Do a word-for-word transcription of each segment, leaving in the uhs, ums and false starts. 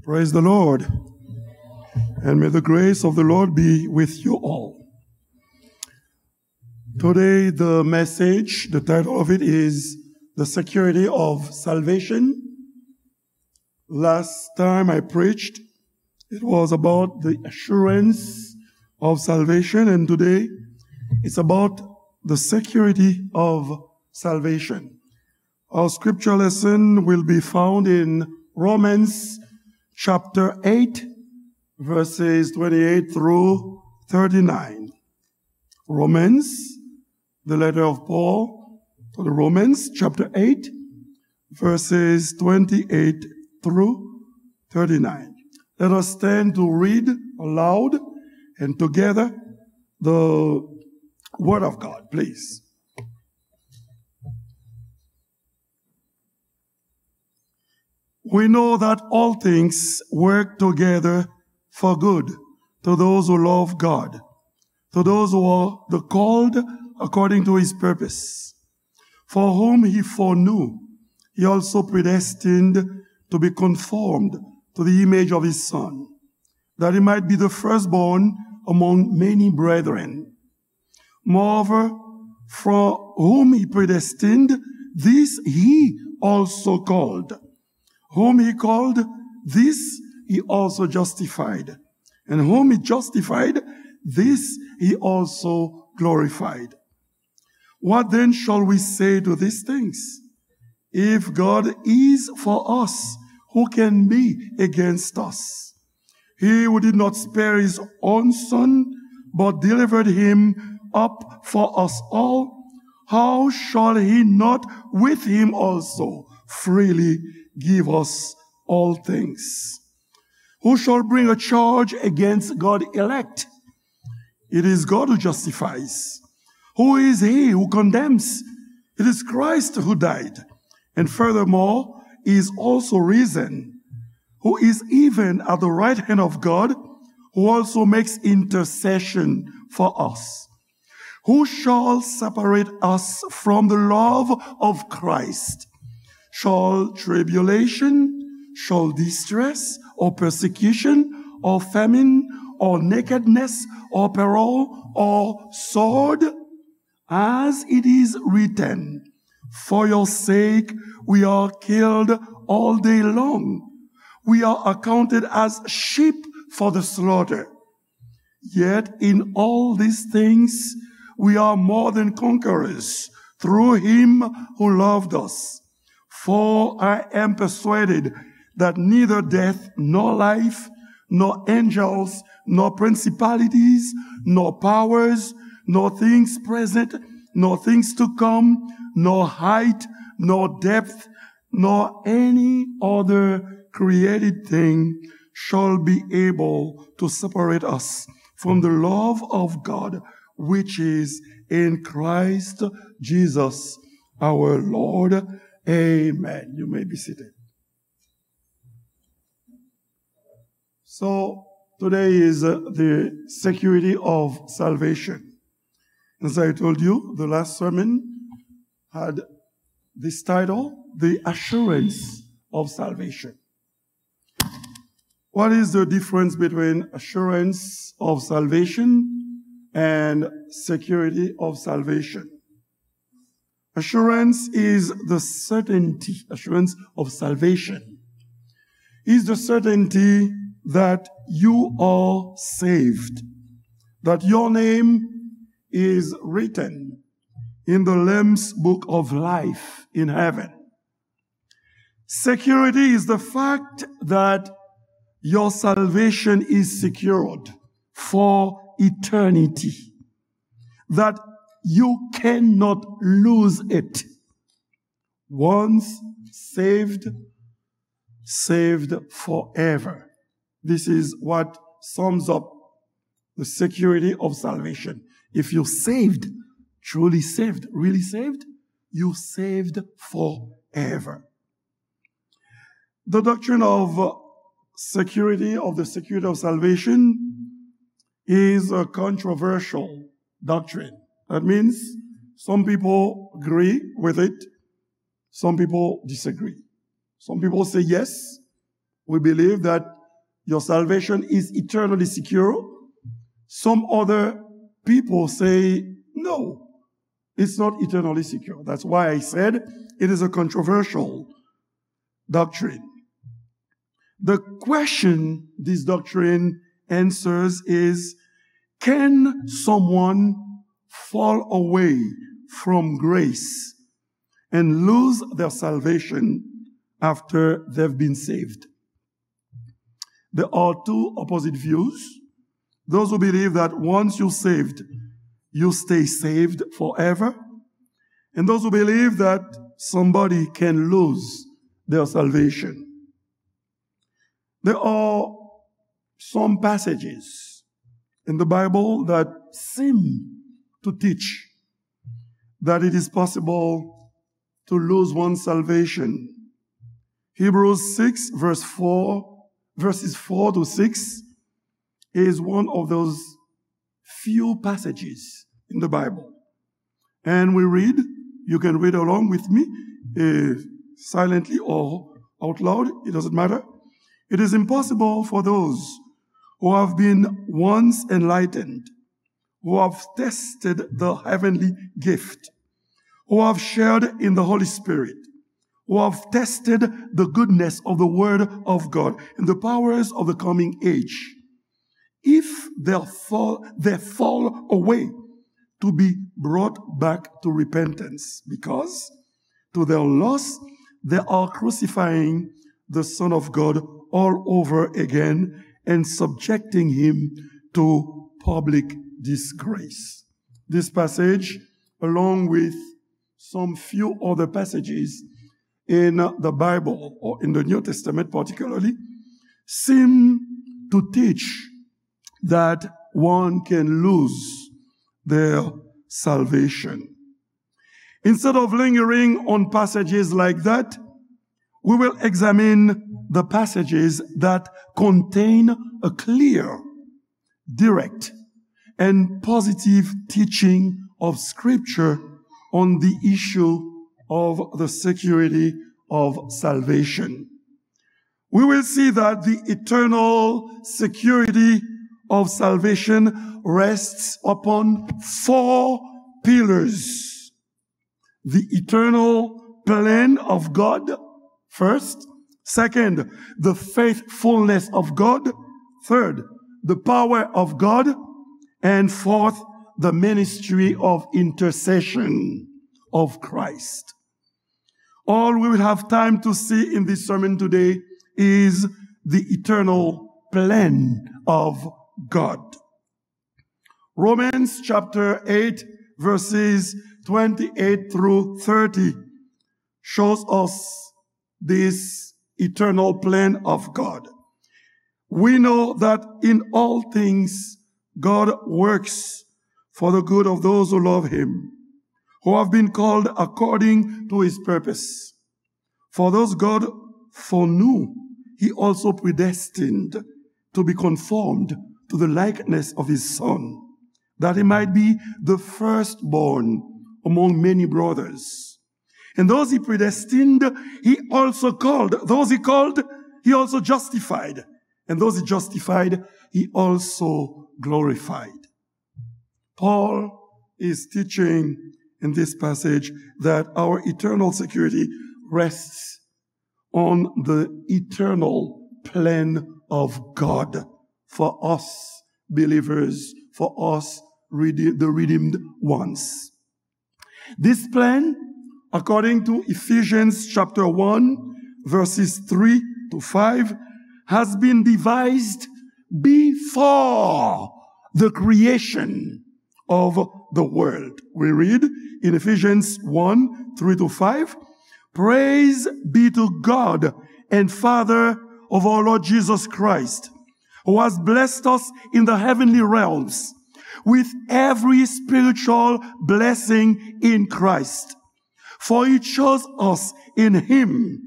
Praise the Lord. And may the grace of the Lord be with you all. Today, the message, the title of it is The Security of Salvation. Last time I preached, it was about the assurance of salvation, and today it's about the security of salvation. Our scripture lesson will be found in Romans chapter eight, verses twenty-eight through thirty-nine. Romans, the letter of Paul to the Romans, chapter eight, verses twenty-eight through thirty-nine. Let us stand to read aloud and together the word of God, please. We know that all things work together for good to those who love God, to those who are the called according to his purpose. For whom he foreknew, he also predestined to be conformed to the image of his Son, that he might be the firstborn among many brethren. Moreover, for whom he predestined, this he also called. Whom he called, this he also justified. And whom he justified, this he also glorified. What then shall we say to these things? If God is for us, who can be against us? He who did not spare his own Son, but delivered him up for us all, how shall he not with him also freely give us all things? Who shall bring a charge against God's elect? It is God who justifies. Who is he who condemns? It is Christ who died, and furthermore is also risen, who is even at the right hand of God, who also makes intercession for us. Who shall separate us from the love of Christ? Shall tribulation, shall distress, or persecution, or famine, or nakedness, or peril, or sword? As it is written, for your sake we are killed all day long. We are accounted as sheep for the slaughter. Yet in all these things we are more than conquerors through him who loved us. For I am persuaded that neither death, nor life, nor angels, nor principalities, nor powers, nor things present, nor things to come, nor height, nor depth, nor any other created thing shall be able to separate us from the love of God, which is in Christ Jesus our Lord. Amen. You may be seated. So, today is uh, the security of salvation. As I told you, the last sermon had this title, The Assurance of Salvation. What is the difference between assurance of salvation and security of salvation? Assurance is the certainty, assurance of salvation is the certainty that you are saved, that your name is written in the Lamb's book of life in heaven. Security is the fact that your salvation is secured for eternity, that you cannot lose it. Once saved, saved forever. This is what sums up the security of salvation. If you're saved, truly saved, really saved, you're saved forever. The doctrine of uh, security, of the security of salvation, is a controversial doctrine. That means some people agree with it, some people disagree. Some people say, yes, we believe that your salvation is eternally secure. Some other people say, no, it's not eternally secure. That's why I said it is a controversial doctrine. The question this doctrine answers is, can someone fall away from grace and lose their salvation after they've been saved? There are two opposite views. Those who believe that once you're saved, you stay saved forever. And those who believe that somebody can lose their salvation. There are some passages in the Bible that seem to teach that it is possible to lose one's salvation. Hebrews six, verse four, verses four to six, is one of those few passages in the Bible. And we read, you can read along with me, uh, silently or out loud, it doesn't matter. It is impossible for those who have been once enlightened, who have tested the heavenly gift, who have shared in the Holy Spirit, who have tested the goodness of the Word of God and the powers of the coming age, if they fall, they fall away, to be brought back to repentance, because to their loss, they are crucifying the Son of God all over again and subjecting him to public disgrace. This passage, along with some few other passages in the Bible, or in the New Testament particularly, seem to teach that one can lose their salvation. Instead of lingering on passages like that, we will examine the passages that contain a clear, direct, and positive teaching of Scripture on the issue of the security of salvation. We will see that the eternal security of salvation rests upon four pillars: the eternal plan of God, first. Second, the faithfulness of God. Third, the power of God. And fourth, the ministry of intercession of Christ. All we will have time to see in this sermon today is the eternal plan of God. Romans chapter eight, verses twenty-eight through thirty shows us this eternal plan of God. We know that in all things, God works for the good of those who love him, who have been called according to his purpose. For those God foreknew, he also predestined to be conformed to the likeness of his Son, that he might be the firstborn among many brothers. And those he predestined, he also called. Those he called, he also justified. And those he justified, he also glorified. Paul is teaching in this passage that our eternal security rests on the eternal plan of God for us believers, for us rede-, the redeemed ones. This plan, according to Ephesians chapter one, verses three to five, has been devised before the creation of the world. We read in Ephesians one, three to five, "Praise be to God and Father of our Lord Jesus Christ, who has blessed us in the heavenly realms with every spiritual blessing in Christ. For he chose us in him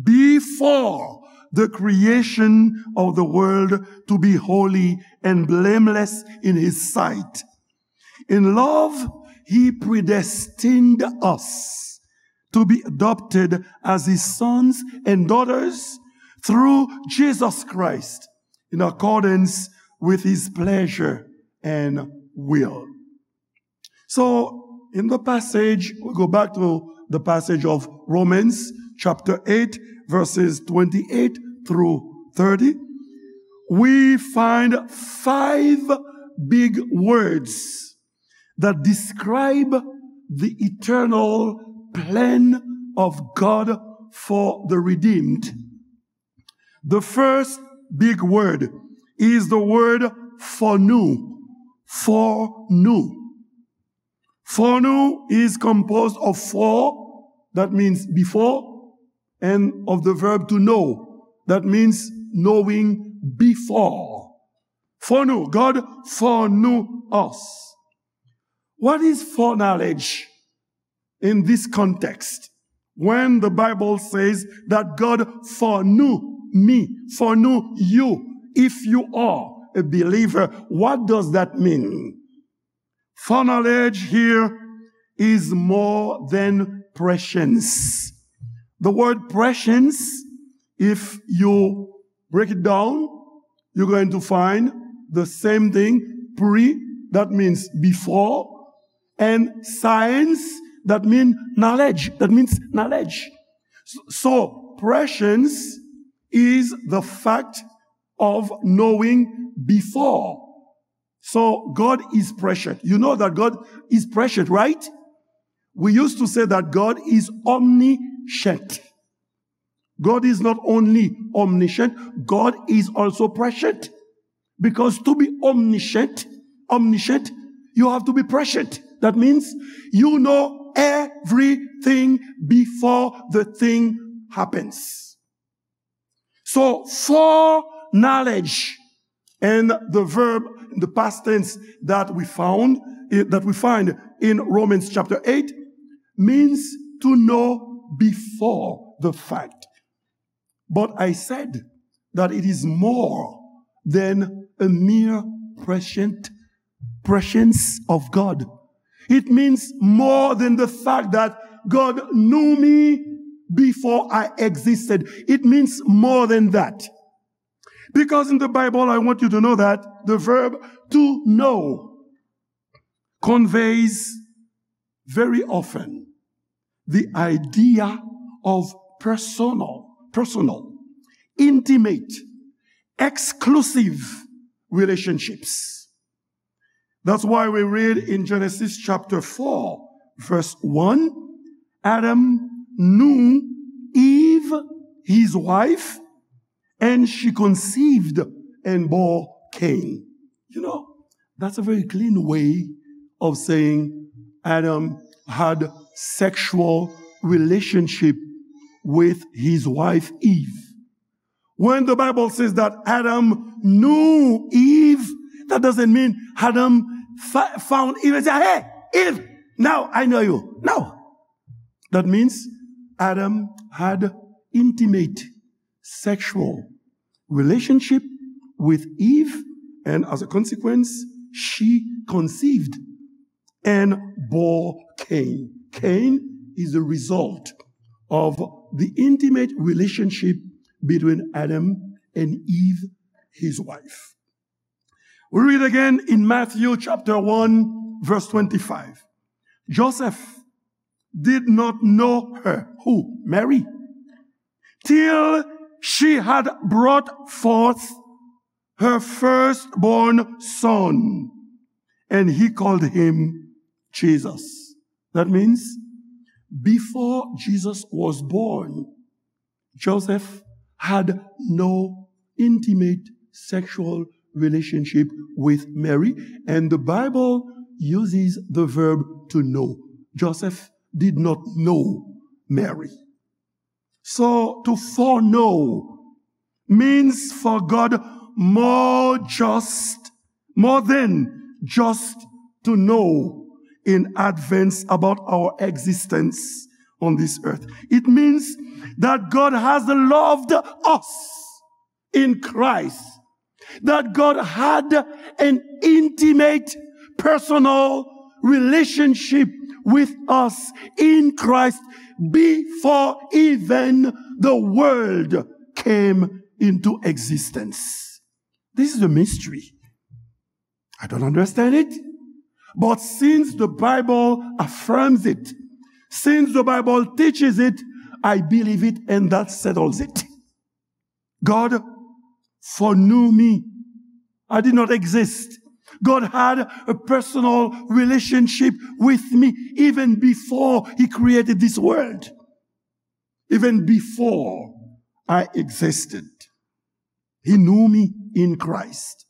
before the creation of the world to be holy and blameless in his sight. In love, he predestined us to be adopted as his sons and daughters through Jesus Christ, in accordance with his pleasure and will. So, in the passage, we go back to the passage of Romans chapter eight, verses twenty-eight through thirty. We find five big words that describe the eternal plan of God for the redeemed. The first big word is the word for nous. For nous. For nous is composed of for, that means before, and of the verb to know, that means knowing before. For nous, God foreknew us. What is foreknowledge in this context? When the Bible says that God foreknew me, foreknew you, if you are a believer, what does that mean? Foreknowledge here is more than prescience. The word prescience, if you break it down, you're going to find the same thing, pre, that means before, and science, that means knowledge, that means knowledge. So, so prescience is the fact of knowing before. So God is prescient. You know that God is prescient, right? We used to say that God is omniscient. God is not only omniscient, God is also prescient. Because to be omniscient, omniscient, you have to be prescient. That means you know everything before the thing happens. So, foreknowledge, and the verb, the past tense that we found, that we find in Romans chapter eight, means to know before the fact. But I said that it is more than a mere prescient prescience of God. It means more than the fact that God knew me before I existed. It means more than that. Because in the Bible, I want you to know that the verb to know conveys very often the idea of personal, personal, intimate, exclusive relationships. That's why we read in Genesis chapter four, verse one, Adam knew Eve, his wife, and she conceived and bore Cain. You know, that's a very clean way of saying Adam had sexual relationship with his wife Eve. When the Bible says that Adam knew Eve, that doesn't mean Adam fa- found Eve and said, "Hey, Eve, now I know you." No. That means Adam had intimate sexual relationship with Eve, and as a consequence, she conceived and bore Cain. Cain is the result of the intimate relationship between Adam and Eve, his wife. We read again in Matthew chapter one, verse twenty-five. Joseph did not know her, who? Mary, till she had brought forth her firstborn son, and he called him Jesus. That means, before Jesus was born, Joseph had no intimate sexual relationship with Mary, and the Bible uses the verb to know. Joseph did not know Mary. So, to foreknow means for God more just, more than just to know in advance about our existence on this earth. It means that God has loved us in Christ, that God had an intimate, personal relationship with us in Christ before even the world came into existence. This is a mystery. I don't understand it. But since the Bible affirms it, since the Bible teaches it, I believe it, and that settles it. God foreknew me. I did not exist. God had a personal relationship with me even before He created this world. Even before I existed, He knew me in Christ.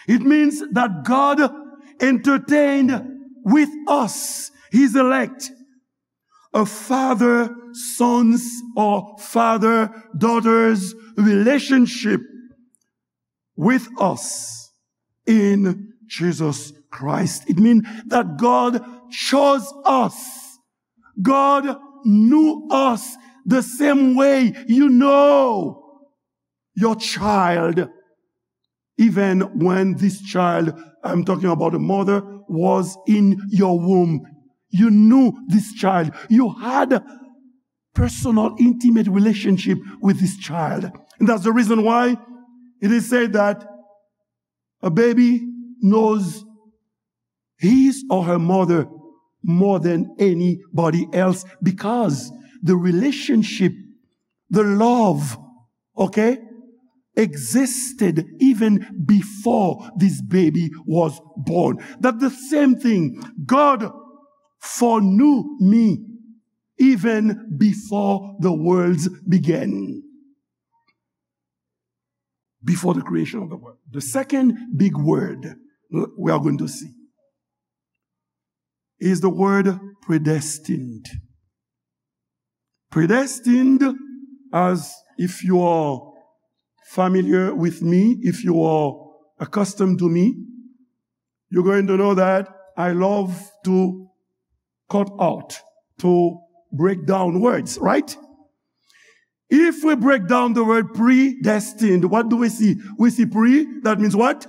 It means that God entertained with us, His elect, a father son's or father daughter's relationship with us in Jesus Christ. It means that God chose us. God knew us the same way you know your child, even when this child, I'm talking about a mother, was in your womb. You knew this child. You had personal, intimate relationship with this child. And that's the reason why it is said that a baby knows his or her mother more than anybody else because the relationship, the love, okay, existed even before this baby was born. That the same thing, God foreknew me even before the worlds began. Before the creation of the world. The second big word we are going to see is the word predestined. Predestined, as if you are familiar with me, if you are accustomed to me, you're going to know that I love to cut out, to break down words, right? If we break down the word predestined, what do we see? We see pre, that means what?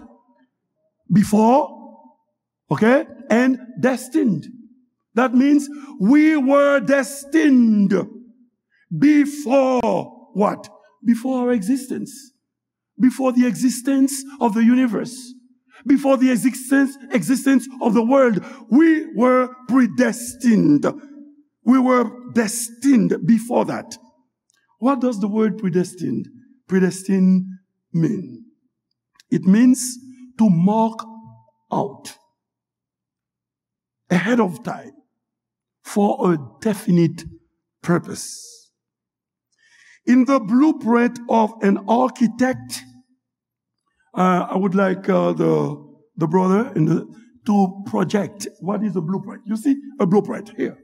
Before, okay? And destined. That means we were destined before what? Before our existence. Before the existence of the universe, before the existence, existence of the world, we were predestined. We were destined before that. What does the word predestined, predestined mean? It means to mark out ahead of time for a definite purpose. In the blueprint of an architect, uh, I would like uh, the, the brother in the, to project what is a blueprint. You see a blueprint here.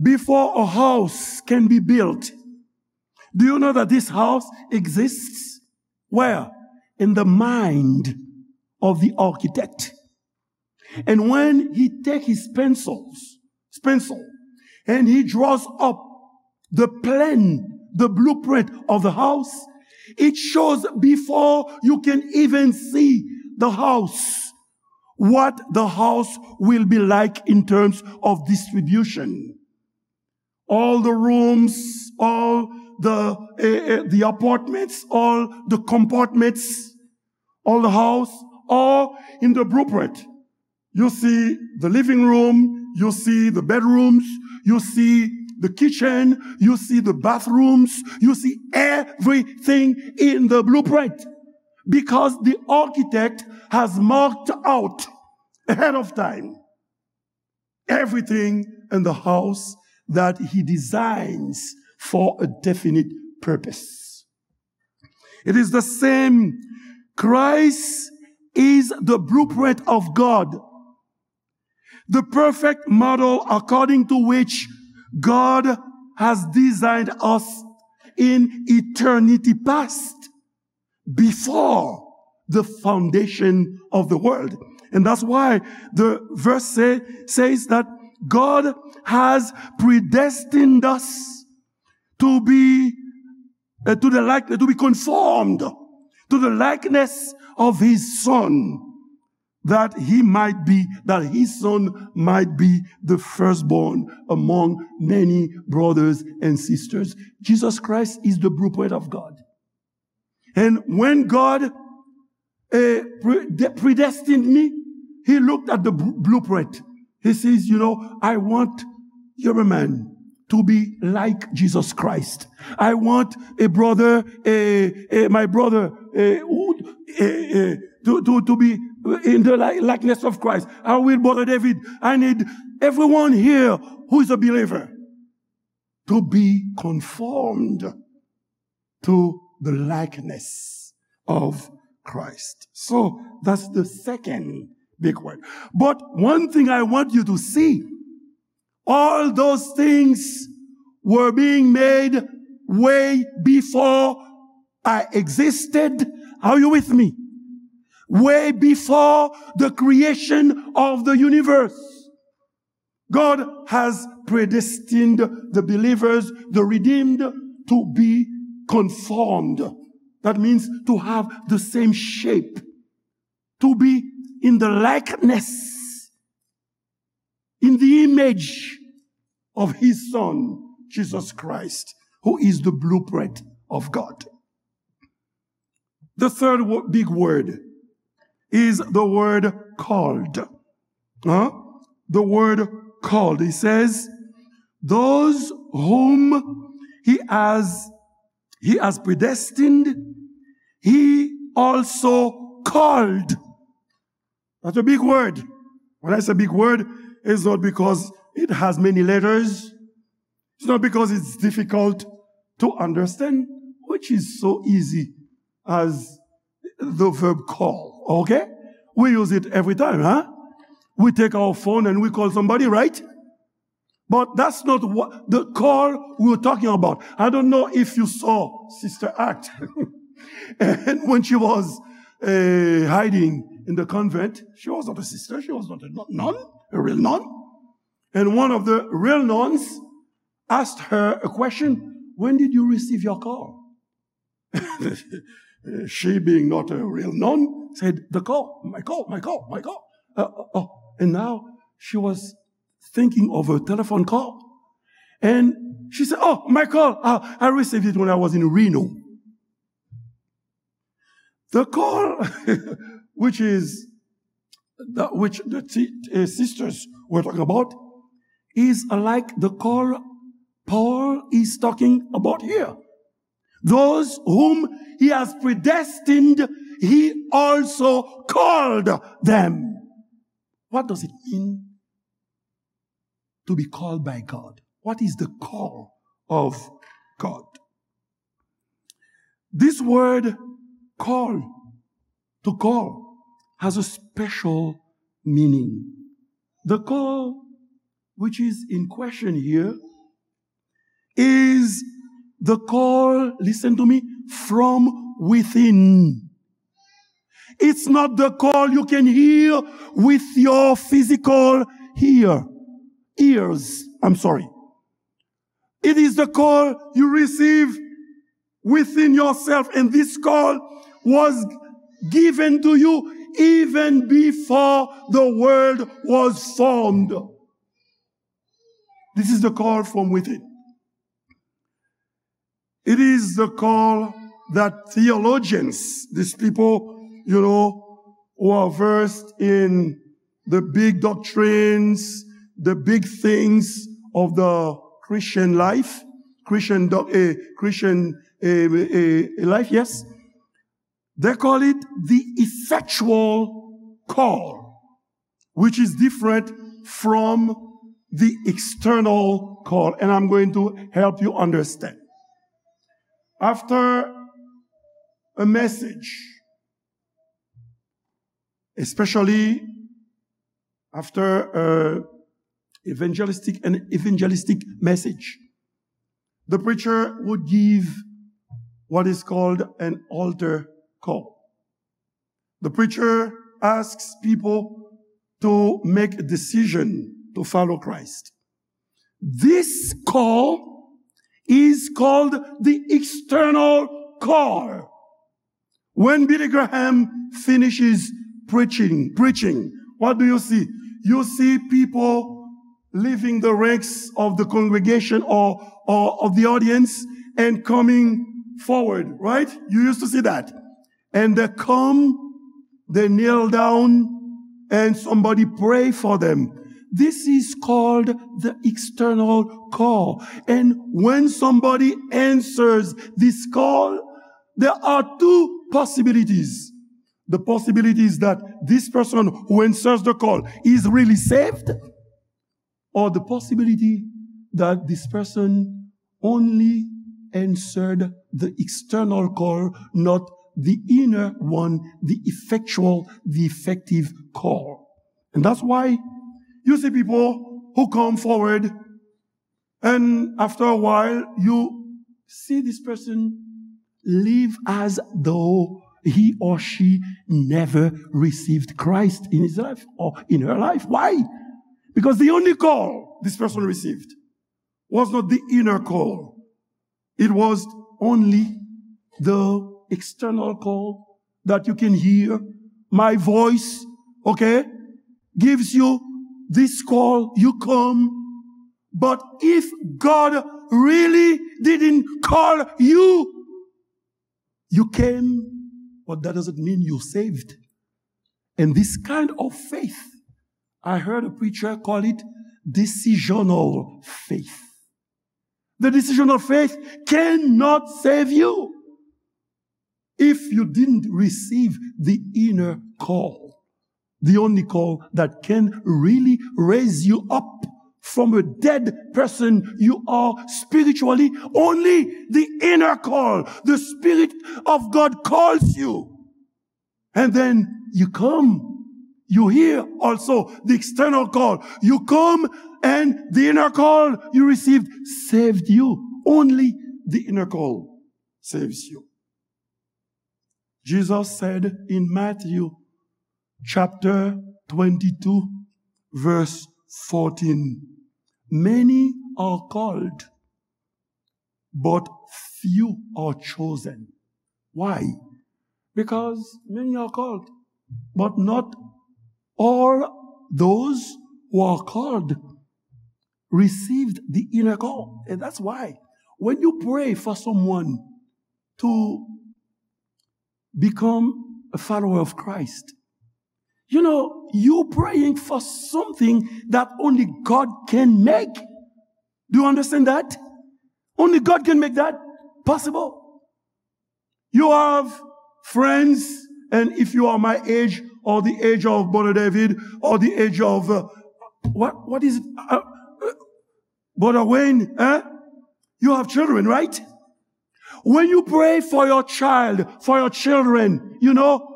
Before a house can be built, do you know that this house exists? Where? In the mind of the architect. And when he take his pencils, pencil, and he draws up the plan, the blueprint of the house, it shows before you can even see the house what the house will be like in terms of distribution. All the rooms, all the uh, uh, the apartments, all the compartments, all the house, all in the blueprint. You see the living room, you see the bedrooms, you see the kitchen, you see the bathrooms, you see everything in the blueprint. Because the architect has marked out ahead of time everything in the house that he designs for a definite purpose. It is the same. Christ is the blueprint of God, the perfect model according to which God has designed us in eternity past, before the foundation of the world. And that's why the verse say, says that God has predestined us to be uh, to the likeness, to be conformed to the likeness of his son, that he might be, that his son might be the firstborn among many brothers and sisters. Jesus Christ is the blueprint of God. And when God eh, pre-, de-, predestined me, he looked at the bl-, blueprint. He says, you know, I want Yuriman to be like Jesus Christ. I want a brother, a, a, my brother, a, who, a, a, to, to, to be in the li-, likeness of Christ. I will, Brother David, I need everyone here who is a believer to be conformed to the likeness of Christ. So that's the second big word. But one thing I want you to see, all those things were being made way before I existed. Are you with me? Way before the creation of the universe. God has predestined the believers, the redeemed, to be conformed. That means to have the same shape, to be in the likeness, in the image of his Son, Jesus Christ, who is the blueprint of God. The third wo-, big word is the word called. Huh? The word called. He says, those whom he has, he has predestined, he also called. That's a big word. When I say big word, it's not because it has many letters. It's not because it's difficult to understand, which is so easy as the verb call, okay? We use it every time, huh? We take our phone and we call somebody, right? But that's not what the call we were talking about. I don't know if you saw Sister Act. And when she was, uh, hiding in the convent, she was not a sister, she was not a nun, a real nun. And one of the real nuns asked her a question, "When did you receive your call?" She, being not a real nun, said, "The call, my call, my call, my call." Uh, uh, uh. And now she was thinking of a telephone call. And she said, "Oh, my call, uh, I received it when I was in Reno." The call, which is the, which the t-, uh, sisters were talking about, is like the call Paul is talking about here. Those whom he has predestined, he also called them. What does it mean to be called by God? What is the call of God? This word call, to call, has a special meaning. The call which is in question here is the call, listen to me, from within. It's not the call you can hear with your physical hear, ears. I'm sorry. It is the call you receive within yourself, and this call was given to you even before the world was formed. This is the call from within. It is the call that theologians, these people, you know, who are versed in the big doctrines, the big things of the Christian life, Christian doc-, eh, Christian, eh, eh, eh, life, yes. They call it the effectual call, which is different from the external call. And I'm going to help you understand. After a message, especially after a evangelistic, an evangelistic message, the preacher would give what is called an altar call. The preacher asks people to make a decision to follow Christ. This call is called the external call. When Billy Graham finishes preaching, preaching, what do you see? You see people leaving the ranks of the congregation or, or of the audience and coming forward, right? You used to see that. And they come, they kneel down, and somebody pray for them. This is called the external call. And when somebody answers this call, there are two possibilities. The possibility is that this person who answers the call is really saved, or the possibility that this person only answered the external call, not the inner one, the effectual, the effective call. And that's why you see people who come forward, and after a while, you see this person live as though he or she never received Christ in his life or in her life. Why? Because the only call this person received was not the inner call. It was only the external call that you can hear. My voice, okay, gives you this call. You come. But if God really didn't call you, you came, but that doesn't mean you're saved. And this kind of faith, I heard a preacher call it decisional faith. The decisional faith cannot save you if you didn't receive the inner call, the only call that can really raise you up from a dead person you are spiritually. Only the inner call, the Spirit of God calls you. And then you come. You hear also the external call. You come, and the inner call you received saved you. Only the inner call saves you. Jesus said in Matthew chapter twenty-two, verse fourteen, "Many are called, but few are chosen." Why? Because many are called, but not all those who are called received the inner call. And that's why when you pray for someone to become a follower of Christ, you know, you praying for something that only God can make. Do you understand that? Only God can make that possible. You have friends, and if you are my age, or the age of Brother David, or the age of, uh, what, what is it? Uh, uh, Brother Wayne, eh? You have children, right? When you pray for your child, for your children, you know,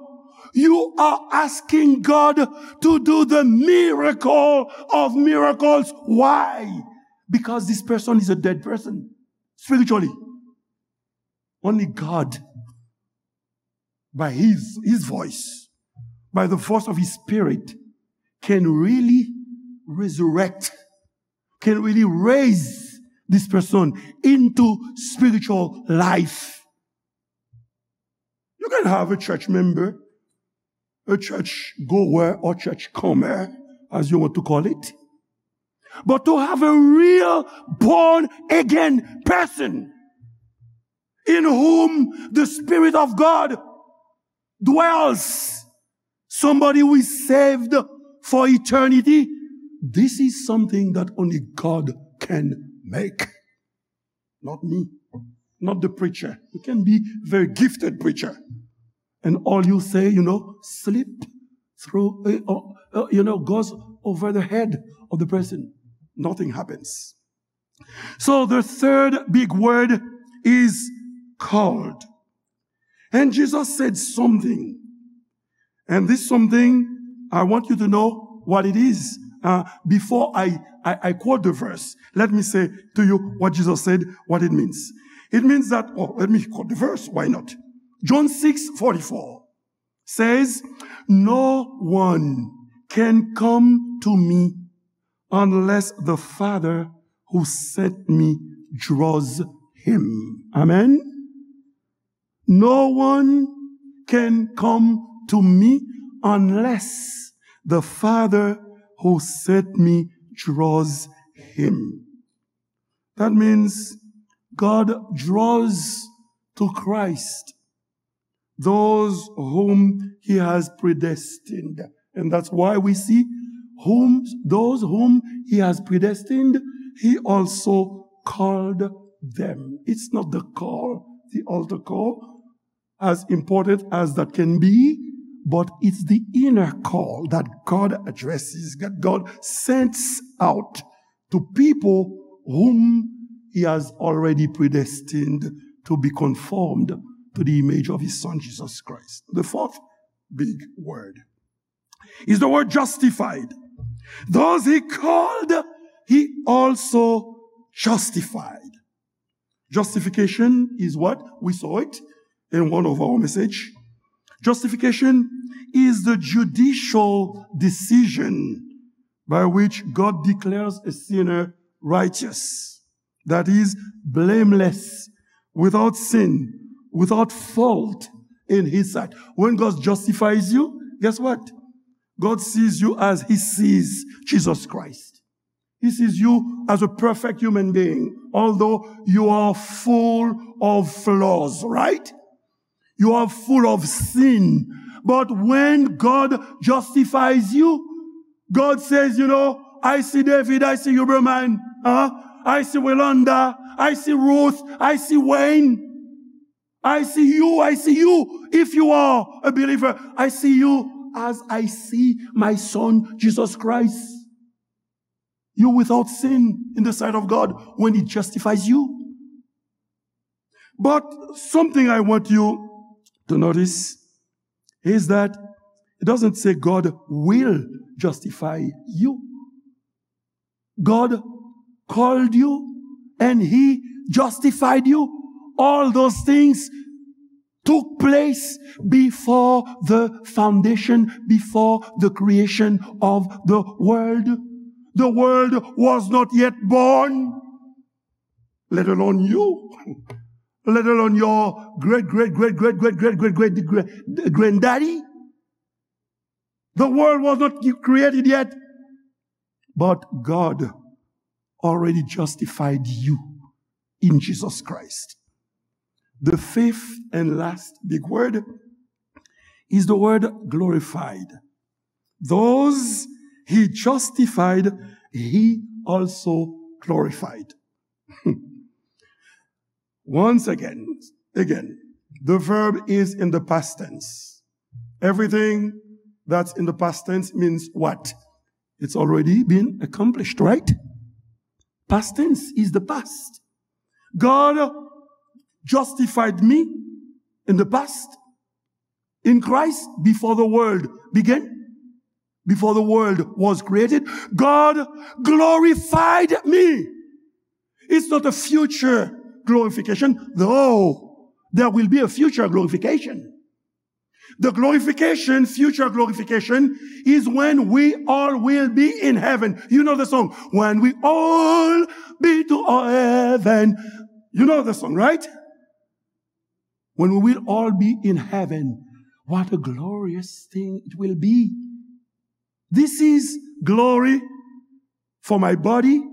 you are asking God to do the miracle of miracles. Why? Because this person is a dead person spiritually. Only God, by his, his voice, by the force of his spirit, can really resurrect, can really raise this person into spiritual life. You can have a church member, a church goer or church comer, as you want to call it. But to have a real born again person in whom the Spirit of God dwells, somebody who is saved for eternity, this is something that only God can make. Not me, not the preacher. You can be a very gifted preacher. And all you say, you know, slip through, uh, uh, uh, you know, goes over the head of the person. Nothing happens. So the third big word is called. And Jesus said something. And this something, I want you to know what it is. Uh, before I, I, I quote the verse, let me say to you what Jesus said, what it means. It means that, oh, let me quote the verse. Why not? John six forty-four says, "No one can come to me unless the Father who sent me draws him." Amen. "No one can come to me unless the Father who sent me draws him." That means God draws to Christ those whom he has predestined. And that's why we see whom, those whom he has predestined, he also called them. It's not the call, the altar call, as important as that can be, but it's the inner call that God addresses, that God sends out to people whom he has already predestined to be conformed to the image of his son Jesus Christ. The fourth big word is the word justified. Those he called, he also justified. Justification is what? We saw it in one of our message. Justification is the judicial decision by which God declares a sinner righteous, that is, blameless, without sin, without fault in his sight. When God justifies you, guess what? God sees you as he sees Jesus Christ. He sees you as a perfect human being, although you are full of flaws, right? You are full of sin. But when God justifies you, God says, you know, I see David, I see Huberman, huh? I see Welanda, I see Ruth, I see Wayne. I see you, I see you. If you are a believer, I see you as I see my son, Jesus Christ. You without sin in the sight of God when he justifies you. But something I want you to notice is that it doesn't say God will justify you. God called you and he justified you. All those things took place before the foundation, before the creation of the world. The world was not yet born, let alone you, let alone your great, great, great, great, great, great, great, great, great granddaddy. The world was not created yet, but God already justified you in Jesus Christ. The fifth and last big word is the word glorified. Those he justified, he also glorified. Once again, again, the verb is in the past tense. Everything that's in the past tense means what? It's already been accomplished, right? Past tense is the past. God justified me in the past in Christ before the world began, before the world was created. God glorified me. It's not a future glorification, though there will be a future glorification. The glorification, future glorification, is when we all will be in heaven. You know the song, "When we all be to heaven." You know the song, right? When we will all be in heaven, what a glorious thing it will be. This is glory for my body,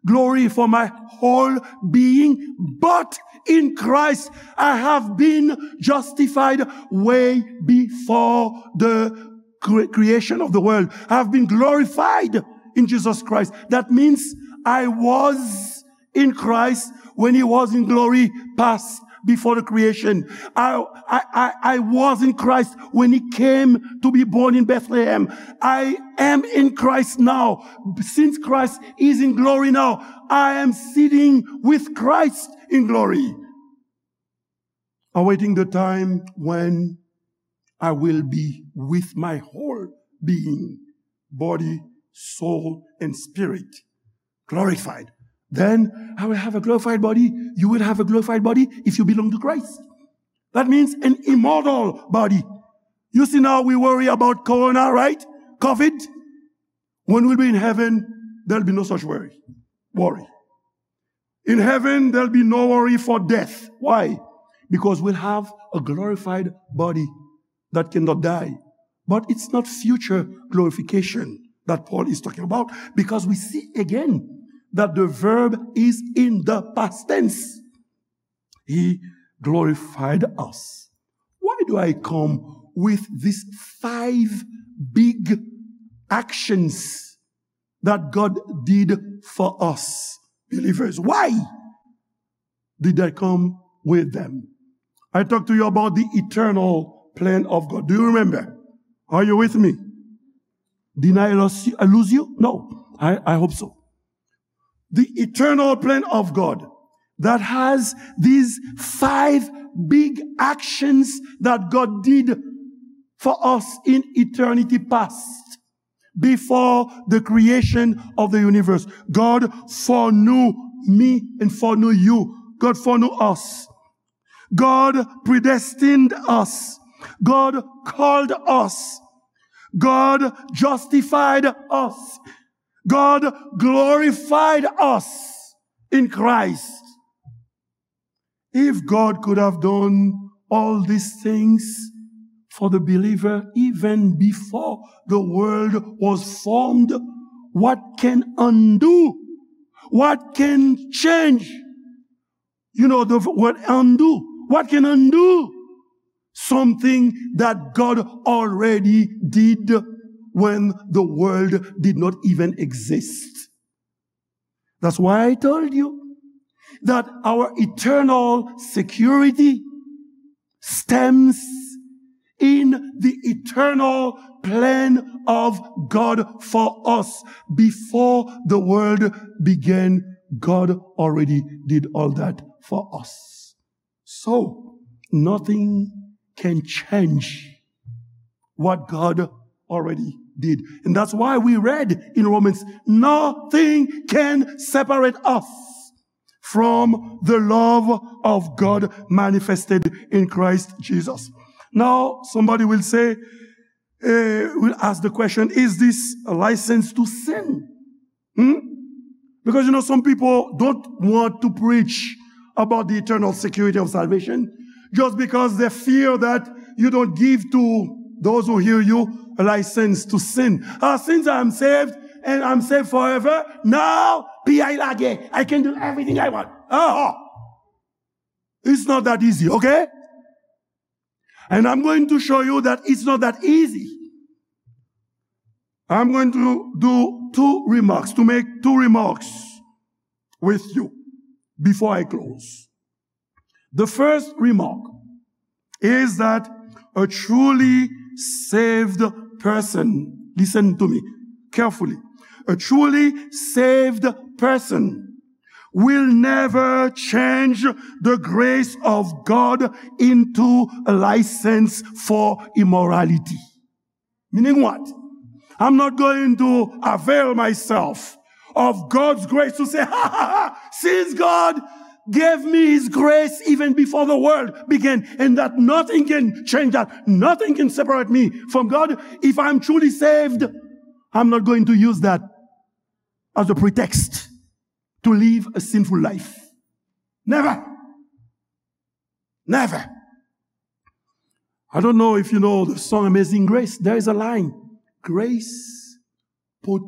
glory for my whole being. But in Christ, I have been justified way before the cre-, creation of the world. I have been glorified in Jesus Christ. That means I was in Christ when he was in glory past before the creation. I, I, I, I was in Christ when he came to be born in Bethlehem. I am in Christ now. Since Christ is in glory now, I am sitting with Christ in glory, awaiting the time when I will be with my whole being, body, soul, and spirit, glorified. Then I will have a glorified body. You will have a glorified body if you belong to Christ. That means an immortal body. You see, now we worry about corona, right? COVID. When we'll be in heaven, there'll be no such worry. Worry. In heaven, there'll be no worry for death. Why? Because we'll have a glorified body that cannot die. But it's not future glorification that Paul is talking about, because we see again that the verb is in the past tense. He glorified us. Why do I come with these five big actions that God did for us, believers? Why did I come with them? I talked to you about the eternal plan of God. Do you remember? Are you with me? Did I lose you? I lose you? No, I, I hope so. The eternal plan of God that has these five big actions that God did for us in eternity past, before the creation of the universe. God foreknew me and foreknew you. God foreknew us. God predestined us. God called us. God justified us. God glorified us in Christ. If God could have done all these things for the believer even before the world was formed, what can undo? What can change? You know the word undo. What can undo something that God already did when the world did not even exist? That's why I told you that our eternal security stems in the eternal plan of God for us. Before the world began, God already did all that for us. So, nothing can change what God already did. And that's why we read in Romans, nothing can separate us from the love of God manifested in Christ Jesus. Now, somebody will say, eh, will ask the question, is this a license to sin? Hmm? Because, you know, some people don't want to preach about the eternal security of salvation just because they fear that you don't give to those who hear you a license to sin. Ah, since I'm saved and I'm saved forever, now, P I lage, I can do everything I want. Ah, it's not that easy, okay? And I'm going to show you that it's not that easy. I'm going to do two remarks, to make two remarks with you before I close. The first remark is that a truly saved person, listen to me carefully, a truly saved person will never change the grace of God into a license for immorality. Meaning what? I'm not going to avail myself of God's grace to say, ha ha ha, since God gave me his grace even before the world began, and that nothing can change that, nothing can separate me from God. If I'm truly saved, I'm not going to use that as a pretext to live a sinful life. Never. Never. I don't know if you know the song Amazing Grace. There is a line, grace put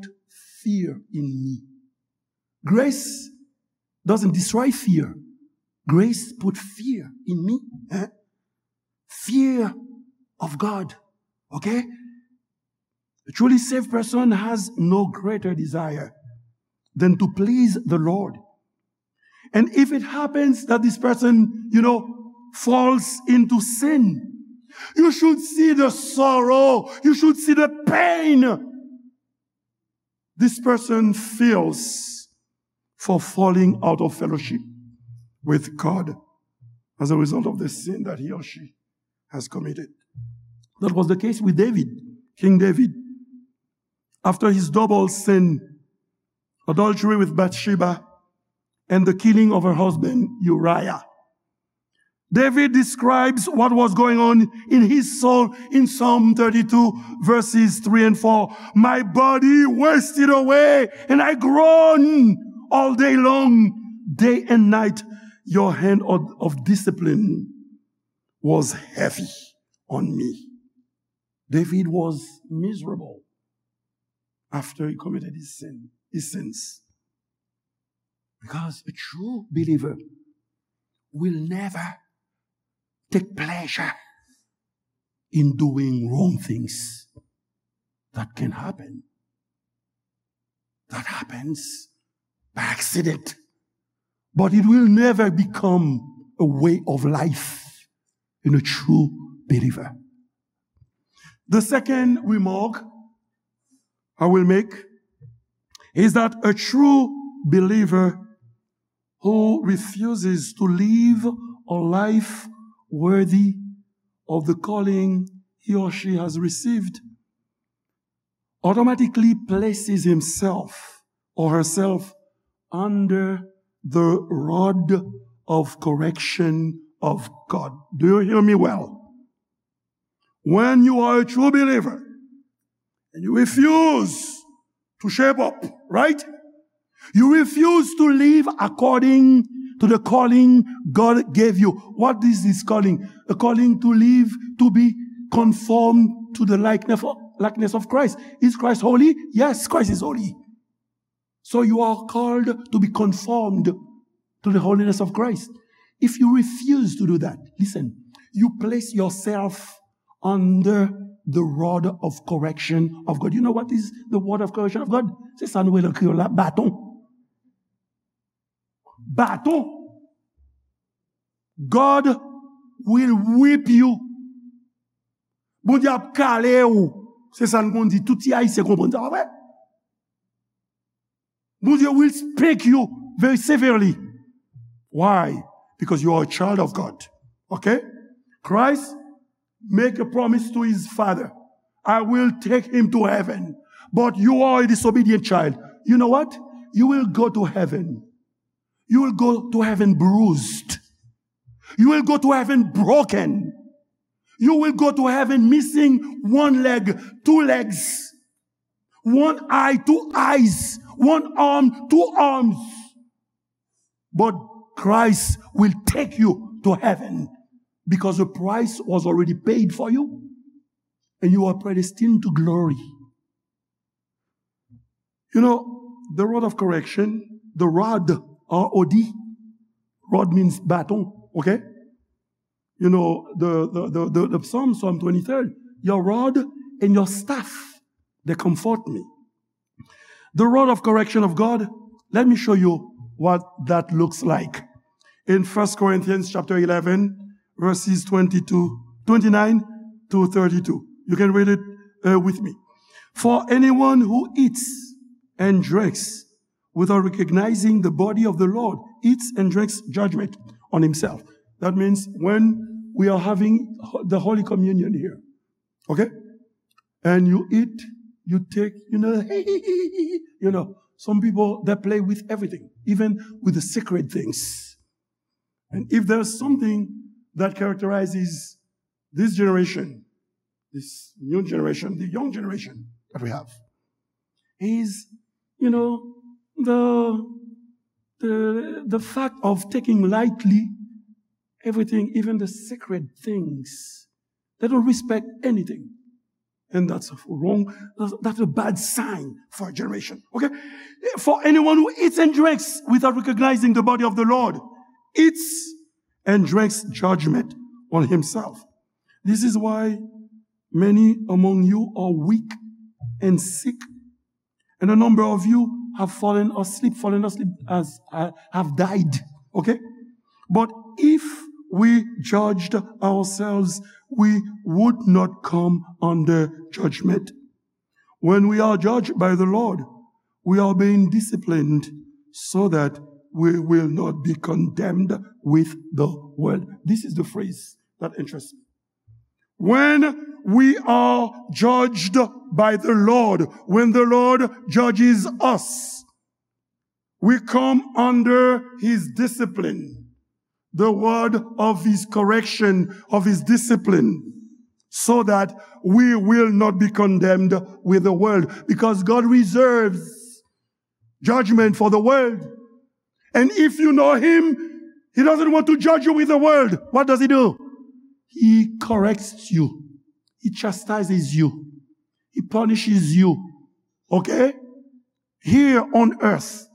fear in me. Grace doesn't destroy fear. Grace put fear in me. Eh? Fear of God. Okay? A truly saved person has no greater desire than to please the Lord. And if it happens that this person, you know, falls into sin, you should see the sorrow, you should see the pain this person feels for falling out of fellowship with God as a result of the sin that he or she has committed. That was the case with David, King David. After his double sin, adultery with Bathsheba and the killing of her husband Uriah, David describes what was going on in his soul in Psalm thirty-two, verses three and four. My body wasted away, and I groaned all day long, day and night. Your hand of, of discipline was heavy on me. David was miserable after he committed his sin, his sins. Because a true believer will never take pleasure in doing wrong things. That can happen. That happens by accident. But it will never become a way of life in a true believer. The second remark I will make is that a true believer who refuses to live a life worthy of the calling he or she has received automatically places himself or herself under the rod of correction of God. Do you hear me well? When you are a true believer and you refuse to shape up, right? You refuse to live according to the calling God gave you. What is this calling? A calling to live, to be conformed to the likeness of, likeness of Christ. Is Christ holy? Yes, Christ is holy. So you are called to be conformed to the holiness of Christ. If you refuse to do that, listen, you place yourself under the rod of correction of God. You know what is the rod of correction of God? Se sa nou rele an kreyòl la, baton. Baton. God will whip you. Bondye ap kale w. Se sa n konn di. Tout ti Ayisyen konprann sa, pa vre? Bondye will spank you very severely. Why? Because you are a child of God. Okay? Christ make a promise to his father. I will take him to heaven. But you are a disobedient child. You know what? You will go to heaven. You will go to heaven bruised. You will go to heaven broken. You will go to heaven missing one leg, two legs, one eye, two eyes, one arm, two arms. But Christ will take you to heaven because the price was already paid for you and you are predestined to glory. You know, the rod of correction, the rod, R O D, rod means baton, okay? You know, the, the, the, the, the Psalm, Psalm twenty-three, your rod and your staff, they comfort me. The rod of correction of God, let me show you what that looks like. In First Corinthians chapter eleven, verses twenty-two, twenty-nine to thirty-two. You can read it uh, with me. For anyone who eats and drinks without recognizing the body of the Lord eats and drinks judgment on himself. That means when we are having ho- the Holy Communion here, okay? And you eat, you take, you know, you know, some people they play with everything, even with the sacred things. And if there's something that characterizes this generation, this new generation, the young generation that we have, is, you know, the the the fact of taking lightly everything, even the sacred things. They don't respect anything. And that's wrong. That's, that's a bad sign for a generation. Okay? For anyone who eats and drinks without recognizing the body of the Lord eats and drinks judgment on himself. This is why many among you are weak and sick, and a number of you have fallen asleep, fallen asleep as uh, have died. Okay? But if we judged ourselves, we would not come under judgment. When we are judged by the Lord, we are being disciplined so that we will not be condemned with the world. This is the phrase that interests me. When we are judged by the Lord, when the Lord judges us, we come under his discipline, the word of his correction, of his discipline, so that we will not be condemned with the world. Because God reserves judgment for the world. And if you know him, he doesn't want to judge you with the world. What does he do? He corrects you. He chastises you. He punishes you. Okay? Here on earth.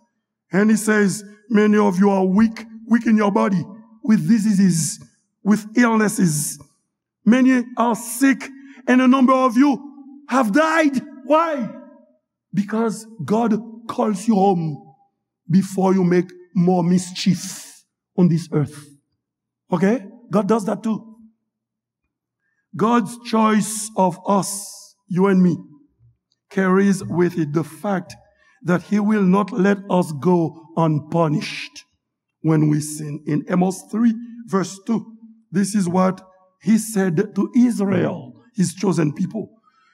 And he says, many of you are weak, weak in your body, with diseases, with illnesses. Many are sick, and a number of you have died. Why? Because God calls you home before you make more mischief on this earth. Okay? God does that too. God's choice of us, you and me, carries with it the fact that he will not let us go unpunished when we sin. In Amos three, verse two, this is what he said to Israel, his chosen people.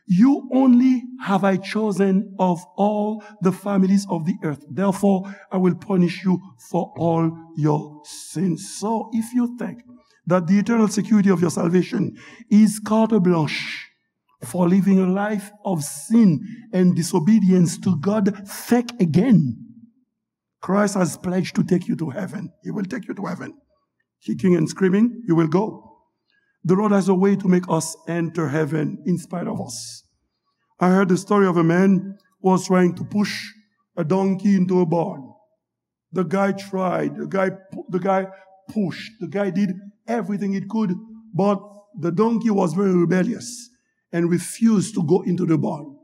"You only have I chosen of all the families of the earth. Therefore, I will punish you for all your sins." So, if you think that the eternal security of your salvation is carte blanche for living a life of sin and disobedience to God, think again. Christ has pledged to take you to heaven. He will take you to heaven. Kicking and screaming, you will go. The Lord has a way to make us enter heaven in spite of us. I heard the story of a man who was trying to push a donkey into a barn. The guy tried, the guy pu-, the guy pushed, the guy did everything he could, but the donkey was very rebellious and refused to go into the barn.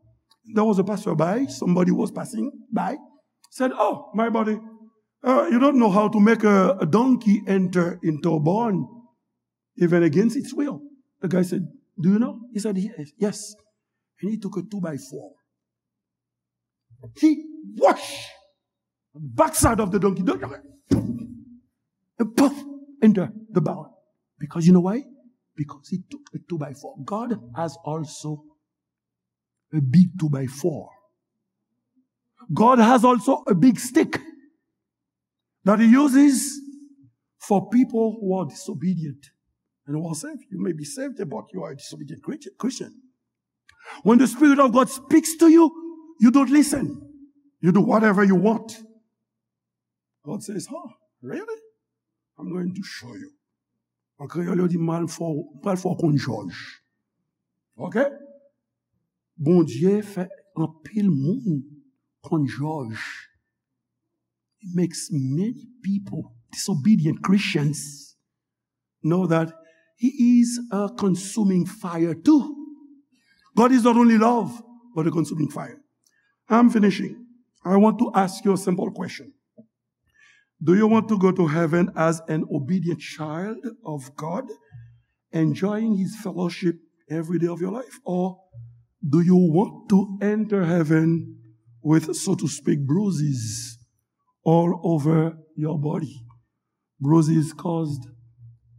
There was a passerby, somebody was passing by, said, "Oh, my buddy, uh, you don't know how to make a, a donkey enter into a barn, even against its will." The guy said, "Do you know?" He said, "Yes, yes." And he took a two by four. He whoosh, backside of the donkey, and poof, into the barn. Because you know why? Because he took a two by four. God has also a big two by four. God has also a big stick that he uses for people who are disobedient and who are saved. You may be saved, but you are a disobedient Christian. When the Spirit of God speaks to you, you don't listen. You do whatever you want. God says, "Huh, really? I'm going to show you." An kreyòl, yo di, "M pral fè w, m pral fè w konn jòj." Ok? Bondye fè anpil moun konn jòj. He makes many people, disobedient Christians, know that he is a consuming fire too. God is not only love, but a consuming fire. I'm finishing. I want to ask you a simple question. Do you want to go to heaven as an obedient child of God, enjoying his fellowship every day of your life? Or do you want to enter heaven with, so to speak, bruises all over your body? Bruises caused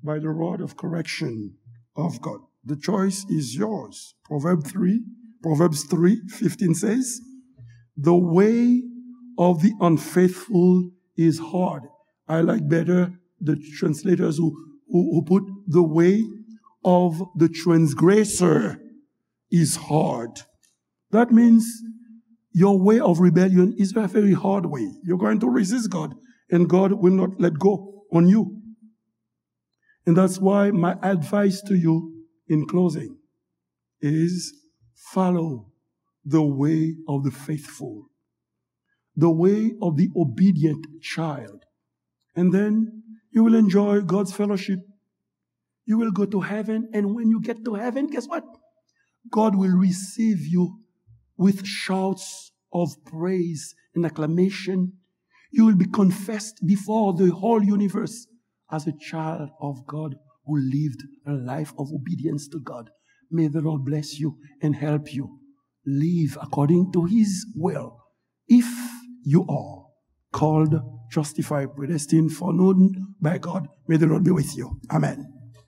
by the rod of correction of God. The choice is yours. Proverbs three, Proverbs three fifteen says, "The way of the unfaithful is hard." I like better the translators who, who, who put, "The way of the transgressor is hard." That means your way of rebellion is a very hard way. You're going to resist God, and God will not let go on you. And that's why my advice to you in closing is follow the way of the faithful, the way of the obedient child. And then you will enjoy God's fellowship. You will go to heaven, and when you get to heaven, guess what? God will receive you with shouts of praise and acclamation. You will be confessed before the whole universe as a child of God who lived a life of obedience to God. May the Lord bless you and help you live according to his will. If you are called, justified, predestined, foreknown by God, may the Lord be with you. Amen.